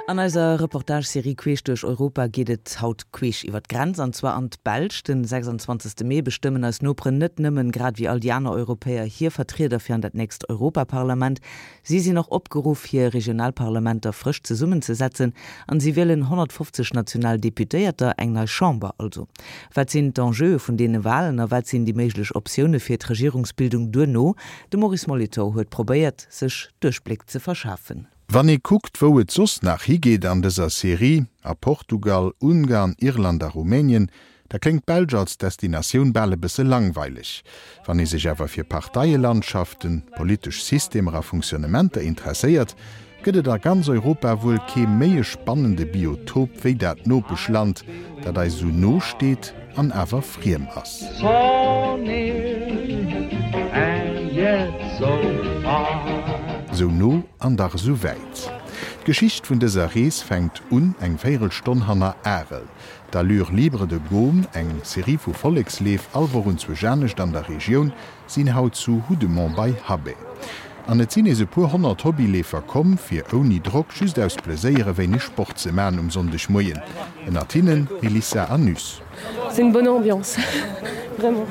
An eiser Reportage-Serie Queesch duerch Europa geet et haut queesch iwwer d'Grenz, an zwar an d'Belsch. Den 26. Mee bestëmmen eis Noperen net nëmmen, grad ewéi all déi aner Europäer, hir Vertrieder fir an dat nächst Europaparlament. Si sinn och opgeruff, hir Regionalparlamenter frësch zesummenzesetzen an si wielen 150 national Deputéierter, eng nei Chamber also. Wat sinn d'Enjeue vun deene Walen a wat sinn déi méiglech Optioune fir d'Regierungsbildung duerno? De Maurice Molitor huet probéiert, sech Duerchbléck ze verschafen. Wann ee kuckt, wou et soss nach higeet an dëser Serie, a Portugal, Ungarn, Irland a Rumänien, da kléngt d'Belsch als Destinatioun bal e bësse langweileg. Wann ee sech awer fir Parteielandschaften, politesch Systemer a Funktionnementer interesséiert, gëtt et a ganz Europa wuel kee méi e spannende Biotop wéi dat Nopeschland, dat eis esou no steet an awer friem ass. Sou no an dach esou wäit. D'Geschicht vun dëser Rees fänkt un eng Véierelstonn hanner Arel. D'Allure libre de Gaume, eng Serie vu Volleksleef, all Woch un zwousch anescht an der Regioun, sinn haut zu Houdemont bei Habay. An et sinn nees e puer 100 Hobbyleefer komm, fir ouni Drock, just aus Pleséier e wéineg Sport ze man um Sonndegmoien. Ënnert hinnen Melissa Anus. C'est une bonne ambiance, vraiment.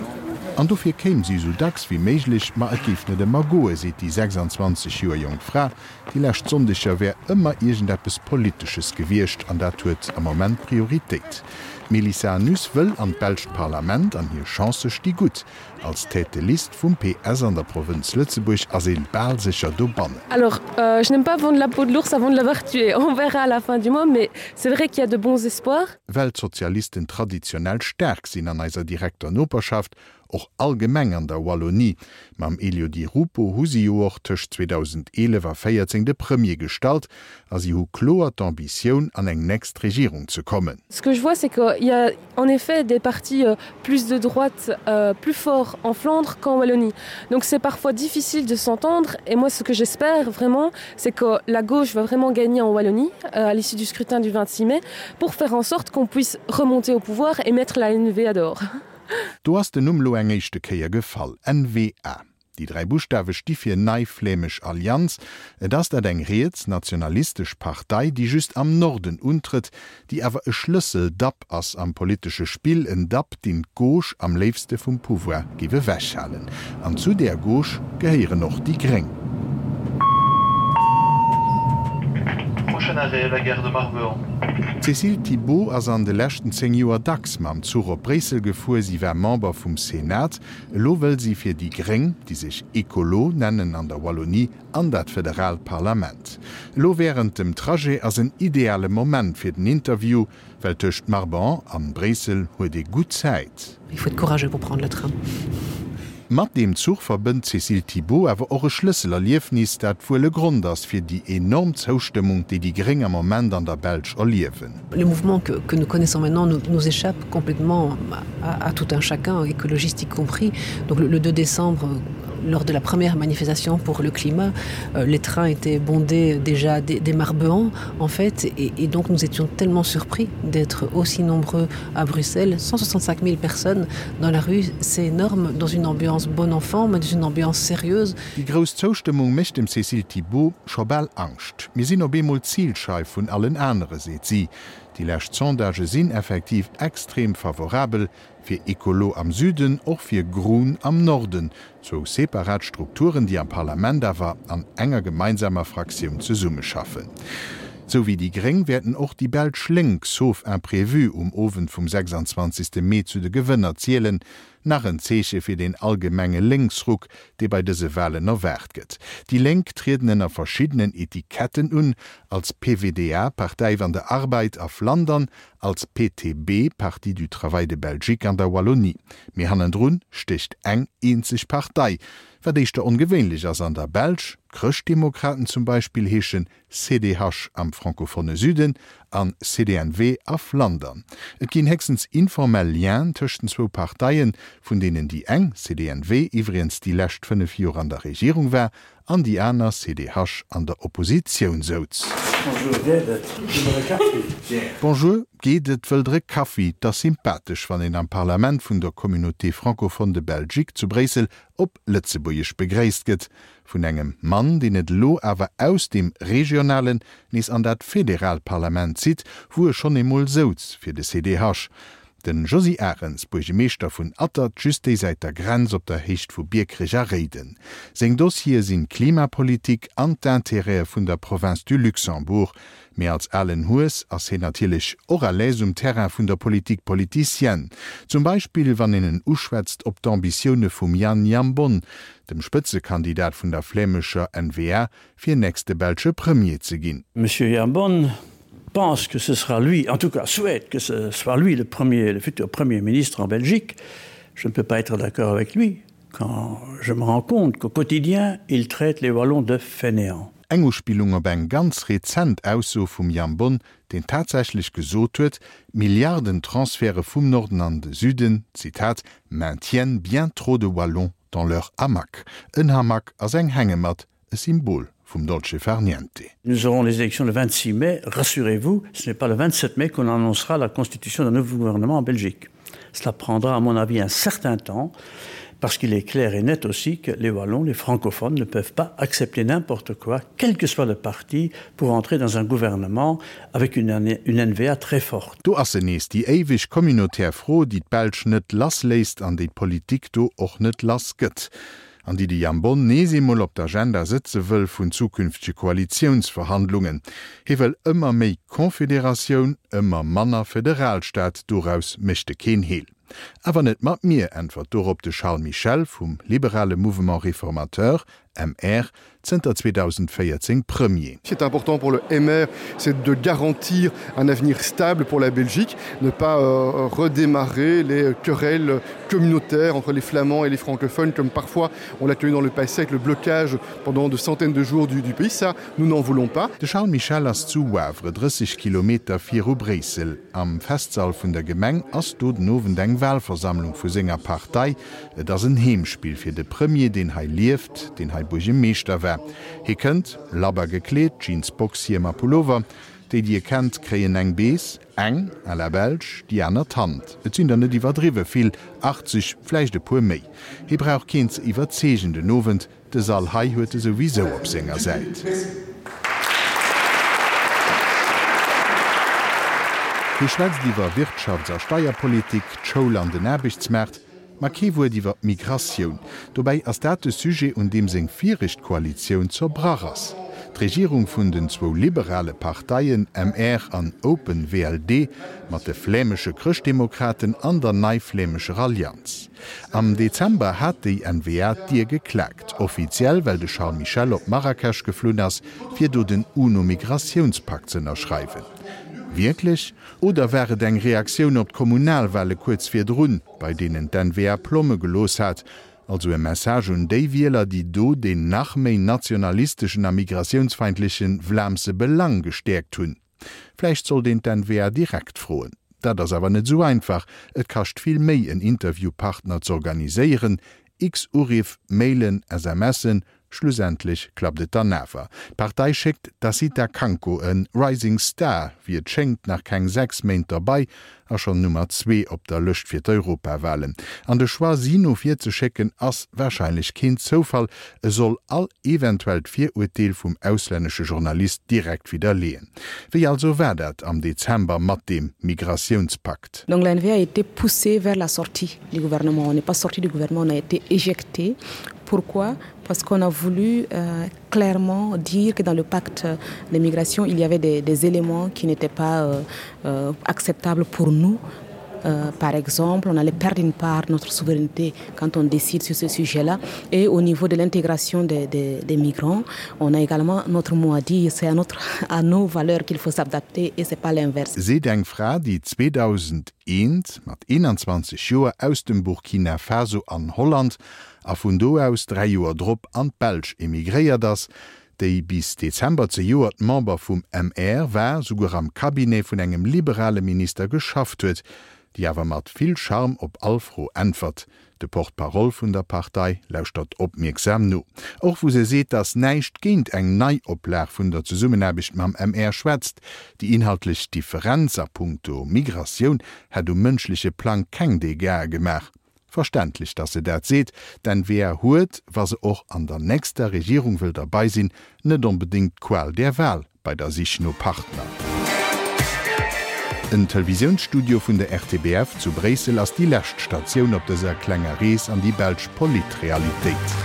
An dofir kéim si esou dacks wéi méiglech, ma et géif net ëmmer goe, seet déi 26 Joer jonk Fra. Déi lescht Sonndeger wär ëmmer iergendeppes Politesches gewiescht an dat huet am Moment Prioritéit. D'Melissa Anus wëll an d'belscht Parlament an hir Chancë sti gutt. Als Tête de liste vum PS an der Provënz Lëtzebuerg ass een bal sécher dobannen. Alors, je n'aime pas vendre la peau de l'ours avant de l'avoir tué. On verra à la fin du mois, mais c'est vrai qu'il y a de bons espoirs. Well d'Sozialisten traditionell staark sinn an eiser direkter Noperschaft, och allgemeng an der Wallonie. Mam Elio Di Rupo hu si jo och tëscht 2011 a 14 de Premier gestallt a si hu kloer d'Ambitioun an eng nächst Regierung ze kommen. Ce que je vois, c'est qu'il y a en effet des partis euh, plus de droite euh, plus forts en Flandre qu'en Wallonie. Donc c'est parfois difficile de s'entendre et moi ce que j'espère vraiment c'est que la gauche va vraiment gagner en Wallonie euh, à l'issue du scrutin du 26 mai pour faire en sorte qu'on puisse remonter au pouvoir et mettre la NVA dehors. Do ass den Numm lo eng éischte Kéier gefall, NVA. Déi 3 Buschtawe sti fir Nei Flämesch Allianz. Et ass dat eng riets nationalistesch Partei, déi just am Norden untrëtt, déi awer e Schlëssel-Dapp ass am politesche Spill, en Dapp, deen d'Gauche am léifste vum Pouvoir géif ewechhalen. An zu där Gauche gehéieren och déi Gréng. Prochain arrêt, la gare de Marbehan. D'Cécile Thibault ass an de leschten 10 Joer dacks mam Zuch op Bréissel gefuer. Si war Member vum Senat. Elo wëll si fir déi Gréng, déi sech Ecolo nennen an der Wallonie, an dat federaalt Parlament. Elo wärend dem Trajet ass en ideale Moment fir den Interview, well tëscht Marban an Bréissel huet ee gutt Zäit. Il faut être courageux pour prendre le train. Mat deem Zuch verbënnt d'Cécile Thibault awer och e Schlësselerliefnis, dat wuel e Grond ass fir déi enorm Zoustëmmung, déi déi Gréng am Moment an der Belsch erliewen. Le mouvement que, que nous connaissons maintenant nous, nous échappe complètement à, à tout un chacun, écologiste y compris. Donc le, le 2 décembre, lors de la première manifestation pour le climat, euh, les trains étaient bondés déjà des, des Marbeans en fait et, et donc nous étions tellement surpris d'être aussi nombreux à Bruxelles 165 000 personnes dans la rue c'est énorme dans une ambiance bon enfant mais dans une ambiance sérieuse. Déi grouss Zoustëmmung mécht dem Cécile Thibault scho bal Angscht. Mir sinn op eemol d'Zilscheif vun allen anere, seet si. Déi lescht Sondagë sinn effektiv extrem favorabel fir Ecolo am Süden, och fir Groen am Norden, zwou separat Strukturen, déi am Parlament awer an enger gemeinsamer Fraktioun zesummeschaffen. Sou wéi déi Gréng wäerten och déi belsch Lénk, sauf imprévu, um Owend vum 26. Mee zu de Gewënner zielen. Nach en Zeeche fir deen allgemenge Lénksruck, dee bei dëse Walen erwaart gëtt. Déi Lénk trieden ënner verschiddenen Etiketten un, als PvdA, Partij van de Arbeid, a Flandern, als PTB, Parti du Travail de Belgique, an der Wallonie. Mee hannendrun stécht eng eenzeg Partei, wat éischter ongewéinlech ass an der Belsch, D'Chrëschtdemokraten zum Beispill heeschen CDH am francophone Süden an CDNW a Flandern. Et ginn héchstens informell Lienen tëscht den zwou Parteien, vun deenen déi eng, CDNW, iwwregens déi lescht 5 Joer an der Regierung war an déi aner, CDH, an der Oppositioun souz. Bonjour, geet et? Wëllt der e Kaffi? Bonjour, geet et? Wëllt der e Kaffi? 't ass sympathesch, wann een am Parlament vun der Communauté francophone de Belgique zu Bréissel op Lëtzebuergesch begréisst gëtt. Vun engem Mann, deen et elo awer aus deem regionalen nees an dat federaalt Parlament zitt, wou e schonn eemol souz fir de CDH. Den Josy Arens, Buergemeeschter vun Attert, just déi Säit der Grenz op der Héicht vu Biekerech a Réiden. Seng Dossiere sinn d'Klimapolitik an d'Intérêtë vun der Province du Luxembourg. Mee als alen Hues ass hien natierlech och à l'aise um Terrain vun der Politique politicienne. Zum Beispill wann een en uschwätzt op d'Ambitioune vum Jan Jambon, dem Spëtzekandidat vun der flämescher N-VA, fir nächste belsche Premier ze ginn. Monsieur Jambon pense que ce sera lui, en tout cas souhaite que ce soit lui le premier, le futur premier ministre en Belgique. Je ne peux pas être d'accord avec lui quand je me rends compte qu'au quotidien, il traite les Wallons de fainéants. Eng Uspillung op eng ganz rezent Ausso vum Jambon, deen tatsächlech gesot huet, d'Milliardentransferte vum Norden an de Süden, Zitat, maintiennent bien trop de Wallons dans leur hamac. En Hamac ass eng Hängematt, e Symbol vum Dolce far niente. Nous aurons les élections le 26 mai, rassurez-vous, ce n'est pas le 27 mai qu'on annoncera la constitution d'un nouveau gouvernement en Belgique. Cela prendra à mon avis un certain temps parce qu'il est clair et net aussi que les wallons, les francophones ne peuvent pas accepter n'importe quoi, quel que soit le parti pour entrer dans un gouvernement avec une, une NVA très forte. Do ass se nees, déi éiweg communautaire Fro, déi d'Belsch net lass léisst an déi d'Politik do och net lass gëtt. An déi de Jambon nees eemol op d'Agenda sëtze wëll vun zukünftege Koalitiounsverhandlungen. Hie wëll ëmmer méi Confederatioun, ëmmer manner Federalstaat, doraus mécht e keen Heel. Awer net mat mir, äntwert dorop de Charles Michel vum liberale Mouvement Réformateur, MR, zënter 2014 Premier. Ce qui est important pour le MR, c'est de garantir un avenir stable pour la Belgique, ne pas euh, redémarrer les querelles communautaires entre les flamands et les francophones comme parfois on l'a connu dans le passé avec le blocage pendant de centaines de jours du, du pays. Ça, nous n'en voulons pas. De Charles Michel ass zu Wavre, 30 Kilometer viru Bréissel. Am Festsall vun der Gemeng ass do den Owend eng Walversammlung vu senger Partei. Et ass en Heemspill fir de Premier, deen hei lieft, deen hei Buergemeeschter war. Hie kënnt, labber gekleet, Jeans, Boxhiem a Pullover. Déi, déi e kennt, kréien eng Bees, eng à la belge, déi aner d'Hand. Et sinn der net iwwerdriwwe vill, 80, vläicht e puer méi. Hie brauch keen ze iwwerzeegen den Owend, De Sall hei huet e souwisou op senger Säit. Hie schwätzt iwwer Wirtschafts a Steierpolitik, d'Schoul an den Aarbechtsmaart, ma kee Wuert iwwer d'Migratioun. Dobäi ass dat de Sujet, un deem seng viregt Koalitioun zerbrach ass. D'Regierung vun den zwou liberale Parteien MR an Open VLD mat de flämesche Chrëschtdemokraten an der Nei-Flämescher Allianz. Am Dezember hat déi N-VA d'Dier geklaakt, offiziell well de Charles Michel op Marrakesch geflunn ass, fir do den UNO-Migratiounspakt z'ënnerschreiwen. Wierklech? Oder war et eng Reaktioun op d'Kommunalwale kuerz virdrun, bei deenen d'N-VA Plomme gelooss hat? Also e Message un déi Wieler, déi do deen nach méi nationalisteschen a migratiounsfeindleche Vlaamse Belang gestäerkt hunn? Vläicht sollt een d'NVA direkt froen. Dat ass awer net esou einfach, et kascht vill Méi en Interviewpartner z'organiséieren, x Uriff, Mailen, SMSen, schlussendlech klappt et dann awer. D'Partei schéckt d'Assita Kanko, e Rising Star, wéi et schéngt, nach keng 6 Méint derbei a schonn Nummer zwee op der Lëscht fir d'Europawahlen. An de Choix si no vir ze schécken ass warscheinlech keen Zoufall, e soll all eventuellt Virurteel vum auslännesche Journalist direkt widderleeën. Wéi also war dat am Dezember mat deem Migratiounspakt? Donc la N-VA a été poussée vers la sortie du gouvernement. On n'est pas sorti du gouvernement, on a été éjecté. Pourquoi? Parce qu'on a voulu euh, clairement dire que dans le pacte de migration, il y avait des, des éléments qui n'étaient pas euh, euh, acceptables pour nous. Euh, par exemple, on allait perdre une part de notre souveraineté quand on décide sur ce sujet-là. Et au niveau de l'intégration des, des, des migrants, on a également notre mot à dire. C'est à, notre, à nos valeurs qu'il faut s'adapter et ce n'est pas l'inverse. Seet eng Fra, déi 2001 mat 21 Joer aus dem Burkina Faso an Holland a vun do aus 3 Joer drop an d'Belsch emigréiert ass, déi bis Dezember zejoert Member vum MR war, souguer am Cabinet vun engem liberale Minister geschafft huet. déi awer mat vill Charme op all Fro äntwert. De Porte-parole vun der Partei lauschtert opmierksam no. Och wou se seet, datt näischt géint eng Neioplag vun der Zesummenaarbecht mam MR schwätzt. Déi inhaltlech Differenz a punkto Migratioun hätt um mënschleche Plang keng Dégâtsë gemaach. Verständlech, datt se dat seet. D'N-V-A huet, wa se och an der nächster Regierung wëll derbei sinn, net onbedéngt d'Qual der Wahl bei der Sich no Partner. En Televisiounsstudio vun der RTBF zu Bréissel ass déi lescht Statioun op dëser klenger Rees an déi belsch Politrealitéit.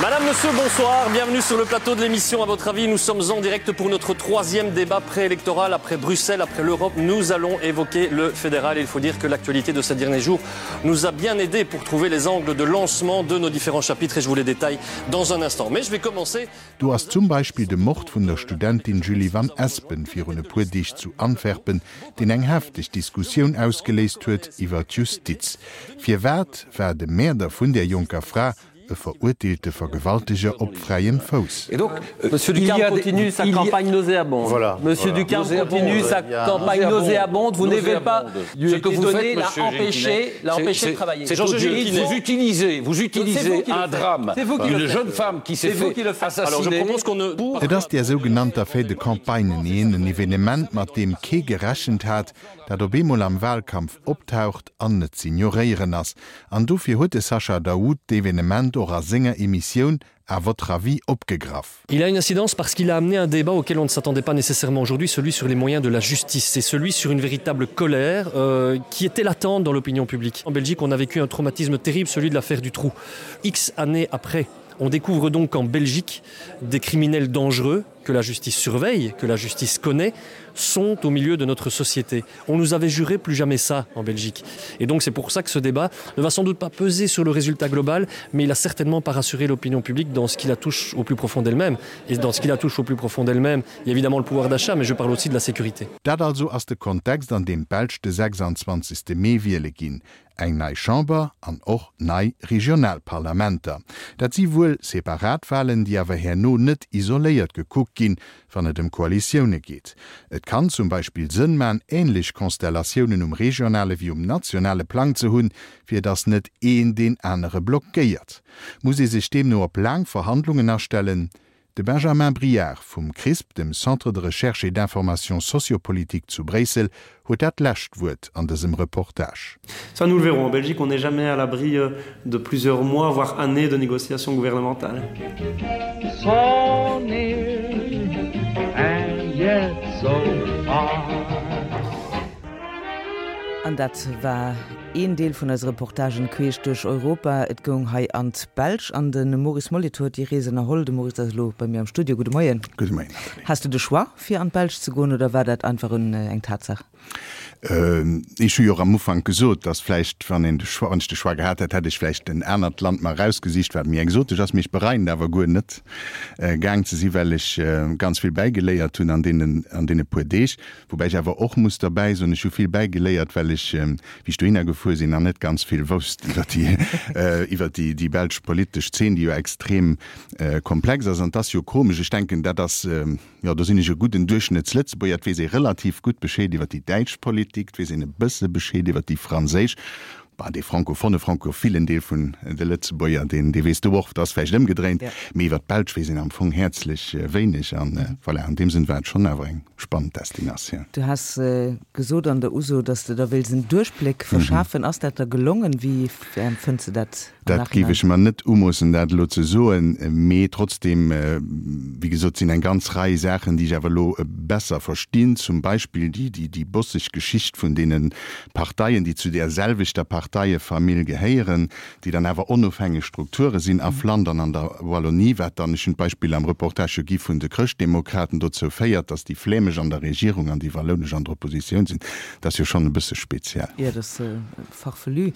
Madame, Monsieur, bonsoir, bienvenue sur le plateau de l'émission à votre avis. Nous sommes en direct pour notre troisième débat préélectoral après Bruxelles, après l'Europe. Nous allons évoquer le fédéral. Il faut dire que l'actualité de ces derniers jours nous a bien aidé pour trouver les angles de lancement de nos différents chapitres et je vous les détaille dans un instant. Mais je vais commencer Do ass zum Beispill de Mord vun der Studentin Julie Van Espen virun e puer Deeg zu Antwerpen, deen eng hefteg Diskussioun ausgeléist huet iwwer d'Justiz. Firwat war de Mäerder vun där jonker Fra e verurteelte Vergewalteger op fräiem Fouss? Et donc, Monsieur Ducarme continue sa campagne nauséabonde. Voilà. Monsieur Ducarme continue sa campagne nauséabonde. Vous n'avez pas ce que vous faites, l'a empêché, l'a empêché de travailler. Vous utilisez, vous utilisez un drame d'une jeune femme qui s'est fait assassiner. Et ass där sougenannter Fait de campagne neen, en Evenement, mat deem kee gerechent hat, dat op eemol am Wahlkampf optaucht an net z'ignoréieren ass. An dofir huet de Sacha Daoud d'Evenement och a senger Emissioun À votre avis opgegraff. Il a une incidence parce qu'il a amené un débat auquel on ne s'attendait pas nécessairement aujourd'hui, celui sur les moyens de la justice, c'est celui sur une véritable colère euh, qui était latente dans l'opinion publique. En Belgique, on a vécu un traumatisme terrible, celui de l'affaire du trou. X années après, on découvre donc en Belgique des criminels dangereux que la justice surveille, que la justice connaît, sont au milieu de notre société. On nous avait juré plus jamais ça en Belgique. Et donc c'est pour ça que ce débat ne va sans doute pas peser sur le résultat global, mais il a certainement pas rassuré l'opinion publique dans ce qui la touche au plus profond d'elle-même. Et dans ce qui la touche au plus profond d'elle-même, il y a évidemment le pouvoir d'achat, mais je parle aussi de la sécurité. Dat also ass de Kontext an deem d'Belsch de 26. Mee wiele ginn. Eng nei Chamber an och nei regional Parlamenter. Dat si wuel separat Walen, déi awer herno net isoléiert gekuckt ginn, wann et ëm Koalitioune geet. Et kann zum Beispill Sënn man, änlech Konstellatiounen um regionale wéi um nationale Plang ze hunn, fir datt net een deen anere blockéiert. Muss ee sech deemno op laang Verhandlungen astellen? De Benjamin Briard vum CRISP, dem Centre de recherche et d'information sociopolitique zu Bréissel, huet dat lescht Wuert an dësem Reportage. Ça nous le verrons. En Belgique, on n'est jamais à l'abri euh, de plusieurs mois, voire années de négociations gouvernementales. So near and yet so far. An dat war een Deel vun eise Reportagen queesch duerch Europa. Et goung hei an d'Belsch an de Maurice Molitor huet déi Rees ënnerholl. De Maurice ass elo bei mir am Studio. Gudde Moien. Gudde Moien, Nathalie. Has du de Choix fir an d'Belsch ze goen oder war dat einfach eng Tatsaach? Ech hu jo och am Ufank gesot, datt vläicht, wann een de Choix, wann ech de Choix gehat hätt, hätt ech vläicht en anert Land mer erausgesicht, wat méi exotesch ass. Mee ech bereien et awer guer net, gaang ze sinn, well ech ganz vill bäigeléiert hunn an deenen, an deene puer Deeg. Woubäi ech awer och muss derbäi soen, ech hu vill bäigeléiert, well ech, wéi ech dohinner gefuer sinn, nach net ganz vill wousst iwwer déi, iwwer déi, déi belsch politesch Zeen, déi jo extrem komplex ass. An et ass jo komesch, ech denken, dat ass, Jo, do sinn ech e gudden Duerchschnëttslëtzebuerger. Et weess ee relativ gutt Bescheed iwwer déi däitsch Politik, et weess een e bësse Bescheed iwwer déi franséisch. Bah, dee francophone, francophilen Deel vun de Lëtzebuerger, deen, dee weess do och, et ass vläicht ëmgedréint, mee iwwer d'Belsch weess een am Fong häerzlech wéineg. An voilà, an deem Sënn war et schonn awer eng spannend Destinatioun. Du has gesot an der Uso, datt s de der wéils en Duerchbléck verschafen. Ass dat der gelongen? Wéi empfënns de dat? Dat géif ech mer net umoossen, dat elo ze soen, mee trotzdem, wéi gesot, sinn eng ganz Rei Saachen, déi ech awer elo besser verstinn, zum Beispill déi bosseg Geschicht vun deene Parteien, déi zu där selwechter Parteiefamill gehéieren, déi dann awer onofhängeg Strukture sinn a Flandern an der Wallonie, wat dann, ech hunn d'Beispill am Reportage jo gi vun de Chrëschtdemokraten, dozou féiert, datt déi flämesch an der Regierung an déi wallounesch an der Oppositioun sinn. Dat ass jo schonn e bësse speziell. Jo, dat ass farfelu.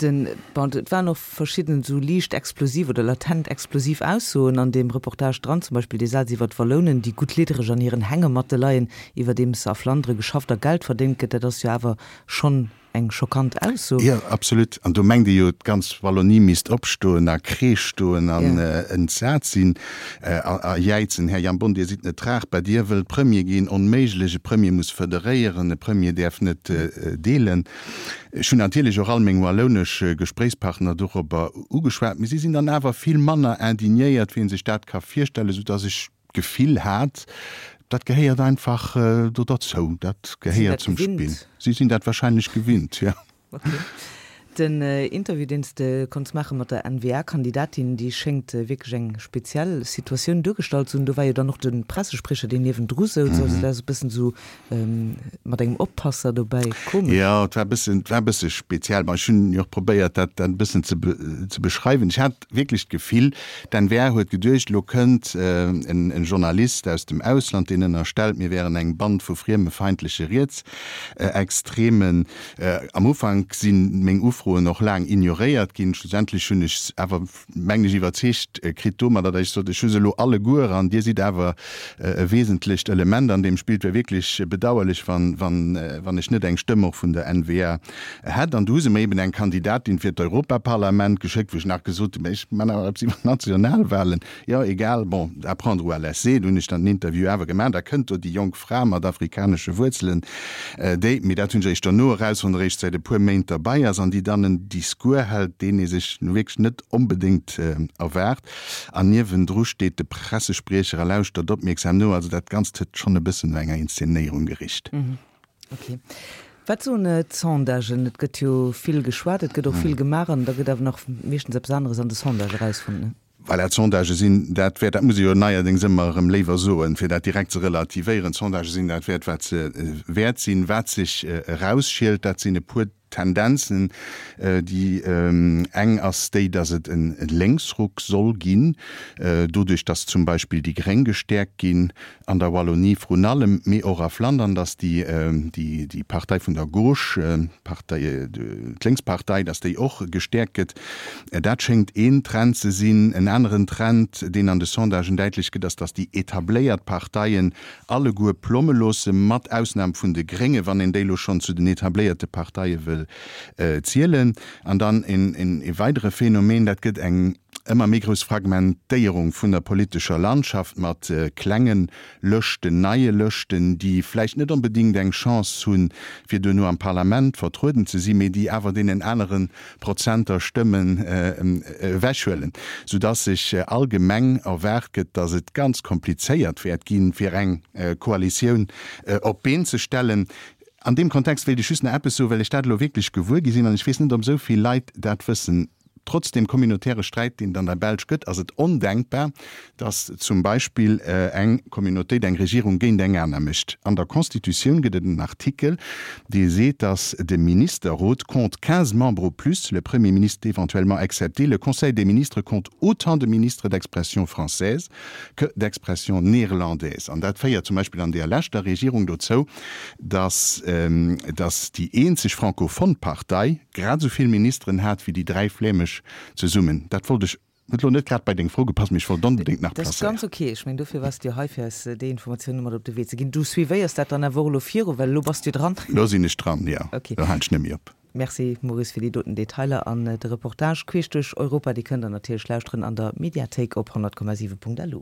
Den, bon, et waren och verschidden esou liicht explosiv oder latent explosiv Aussoen an deem Reportage dran, zum Beispill dee Saz iwwer d'Wallounen, déi gutt liddereg an hiren Hängematte leien, iwwerdeems a Flandere geschafft a Geld verdéngt gëtt. Dat ass jo awer schonn. eng schockant Ausso. Jo, absolut. An do mengt ee jo, d'ganz Wallonie misst opstoen a Kreesch stoen an entsat sinn a jäizen, Här Jambon, Dir sidd net tragbar, Dir wëllt Premier ginn, onméiglech, e Premier muss federéieren, e Premier däerf net deelen. Ech hunn natierlech och all meng wallounesch Gespréichspartner dorobber ugeschwat, mee si sinn dann awer vill manner indignéiert, wéi ee sech dat ka virstellen, soudass ech d'Gefill hat, dat gehéiert einfach do derzou, dat gehéiert zum Spill. Si sinn dat wahrscheinlech gewinnt, jo. Ok. Den Interview, deen s de konns maache mat der N-VA-Kandidatin, déi schéngt wierklech eng speziell Situatioun duergestallt ze hunn. Do war jo dann och de Pressespriecher, deen niewendru souz. Also dat ass e bëssen esou mat engem Oppasser dobäi. Komesch. Jo, et war e bëssen, et war e bësse speziell. Bon, ech hunn jo och probéiert, dat dat e bëssen ze ze beschreiwen. Ech hat wierklech d'Gefill, d'NVA huet geduecht, elo kënnt en Journalist aus dem Ausland, deen ënnerstellt, mir wären eng Band vu friemefeindleche Rietsextremen. Am Ufank si meng Ufroen och laang ignoréiert ginn. Schlussendlech hunn ech se awer, mengen ech, iwwerzeegt kritt domadder, datt ech sot, ech hu se elo alleguer an Dir sidd awer e wesentlecht Element an deem Spill. Et wär wierklech bedauerlech, wann, wann, wann ech net eng Stëmm och vun der N-VA hätt. An du hu se mer eben eng Kandidatin fir d'Europaparlament geschéckt, wou ech nach gesot hunn, mä ech man awer eppes iwwer d'Nationalwahlen. Jo, egal, bon, à prendre ou à laisser. Du hunn ech dann den Interview awer gemaach. Da kënnt do déi jonk Fra mat afrikanesche Wuerzelen, déi, mee dat hunn ech eréischt dono erausfonnt, eréischt säit e puer Méint derbei ass an déi dann en Discours hält, deen ee sech nu wierklech net onbedéngt erwaart. An niewendru steet de Pressespriecher a lauschtert opmierksam no. Also dat Ganzt huet schonn e bëssen no enger Inszenéierung gericht. Ok. Wat soen d'Sondagen? Et gëtt jo vill geschwat, et gëtt och vill gemaach an da gëtt awer nach meeschtens eppes aneres an de Sondage erausfonnt, ne? Voilà, d'Sondagë sinn dat wäert, dat muss ee jo neierdéngs ëmmer erëm léiwer soen, fir dat direkt ze relativéieren, d'Sondagë sinn dat wäert, wat se wäert sinn. Wat sech erausschielt, dat sinn e puer Tendenzen. Déi eng ass déi, datt et e Lénksruck soll ginn, doduerch datt zum Beispill déi Gréng gestäerkt ginn an der Wallonie vrun allem, mee och a Flandern, datt déi Partei vun der Gauche, d'Partei, d'Lénkspartei, datt déi och gestäerkt gëtt. Dat schéngt een Trend ze sinn. En aneren Trend, deen an de Sondagen däitlech gëtt, ass, datt déi etabléiert Parteien alleguer plomme loosse, mat Ausnam vun de Gréngen, wann een déi elo schonn zu den etabléierte Parteie wëll zielen. An dann e weidere Phänomen, dat gëtt eng ëmmer méi grouss Fragmentéierung vun der politescher Landschaft mat klenge Lëschten, neie Lëschten, déi vläicht net onbedéngt eng Chance hunn, fir duerno am Parlament vertrueden ze sinn, mee déi awer deenen anere Prozenter Stëmmen ewechhuelen, soudass sech allgemeng erwaart gëtt, dass et ganz komplizéiert wäert ginn, fir eng Koalitioun op d'Been ze stellen. An deem Kontext wéilt ech just nach eppes soen, well ech dat elo wierklech gewuer gi sinn an ech weess net, ob esou vill Leit dat wëssen. Trotz deem communautäre Sträit, deen et an der Belsch gëtt, ass et ondenkbar, datt zum Beispill eng Communautéit eng Regierung géint eng aner mécht. An der Constitutioun gëtt et en Artikel, dee seet, datt de Ministerrot compte 15 membres au plus, le Premier ministre éventuellement excepté, le Conseil des ministres compte autant de ministres d'expression française que d'expression néerlandaise. An dat féiert zum Beispill an deeër leschter Regierung dozou, datt datt déi eenzeg francophone Partei grad esou vill Ministeren hat wéi déi dräi flämesch zesummen. Dat wollt ech, huet elo net grad bei deng Fro gepasst, mee ech wollt onbedéngt nach Dat ass placéieren. ganz ok. Ech mengen, dofir waars de jo hei, fir eis déi Informatioune mat op de Wee ze ginn. Du suivéiers dat dann awer och elo viru, well elo bass du dran. Elo sinn ech dran, jo. Ok. Elo halen ech net méi op. Merci Maurice fir déi doten Detailer an de Reportage queesch duerch Europa. Dee kënnt der natierlech lauschteren an der Mediathéik op 100,7.lu.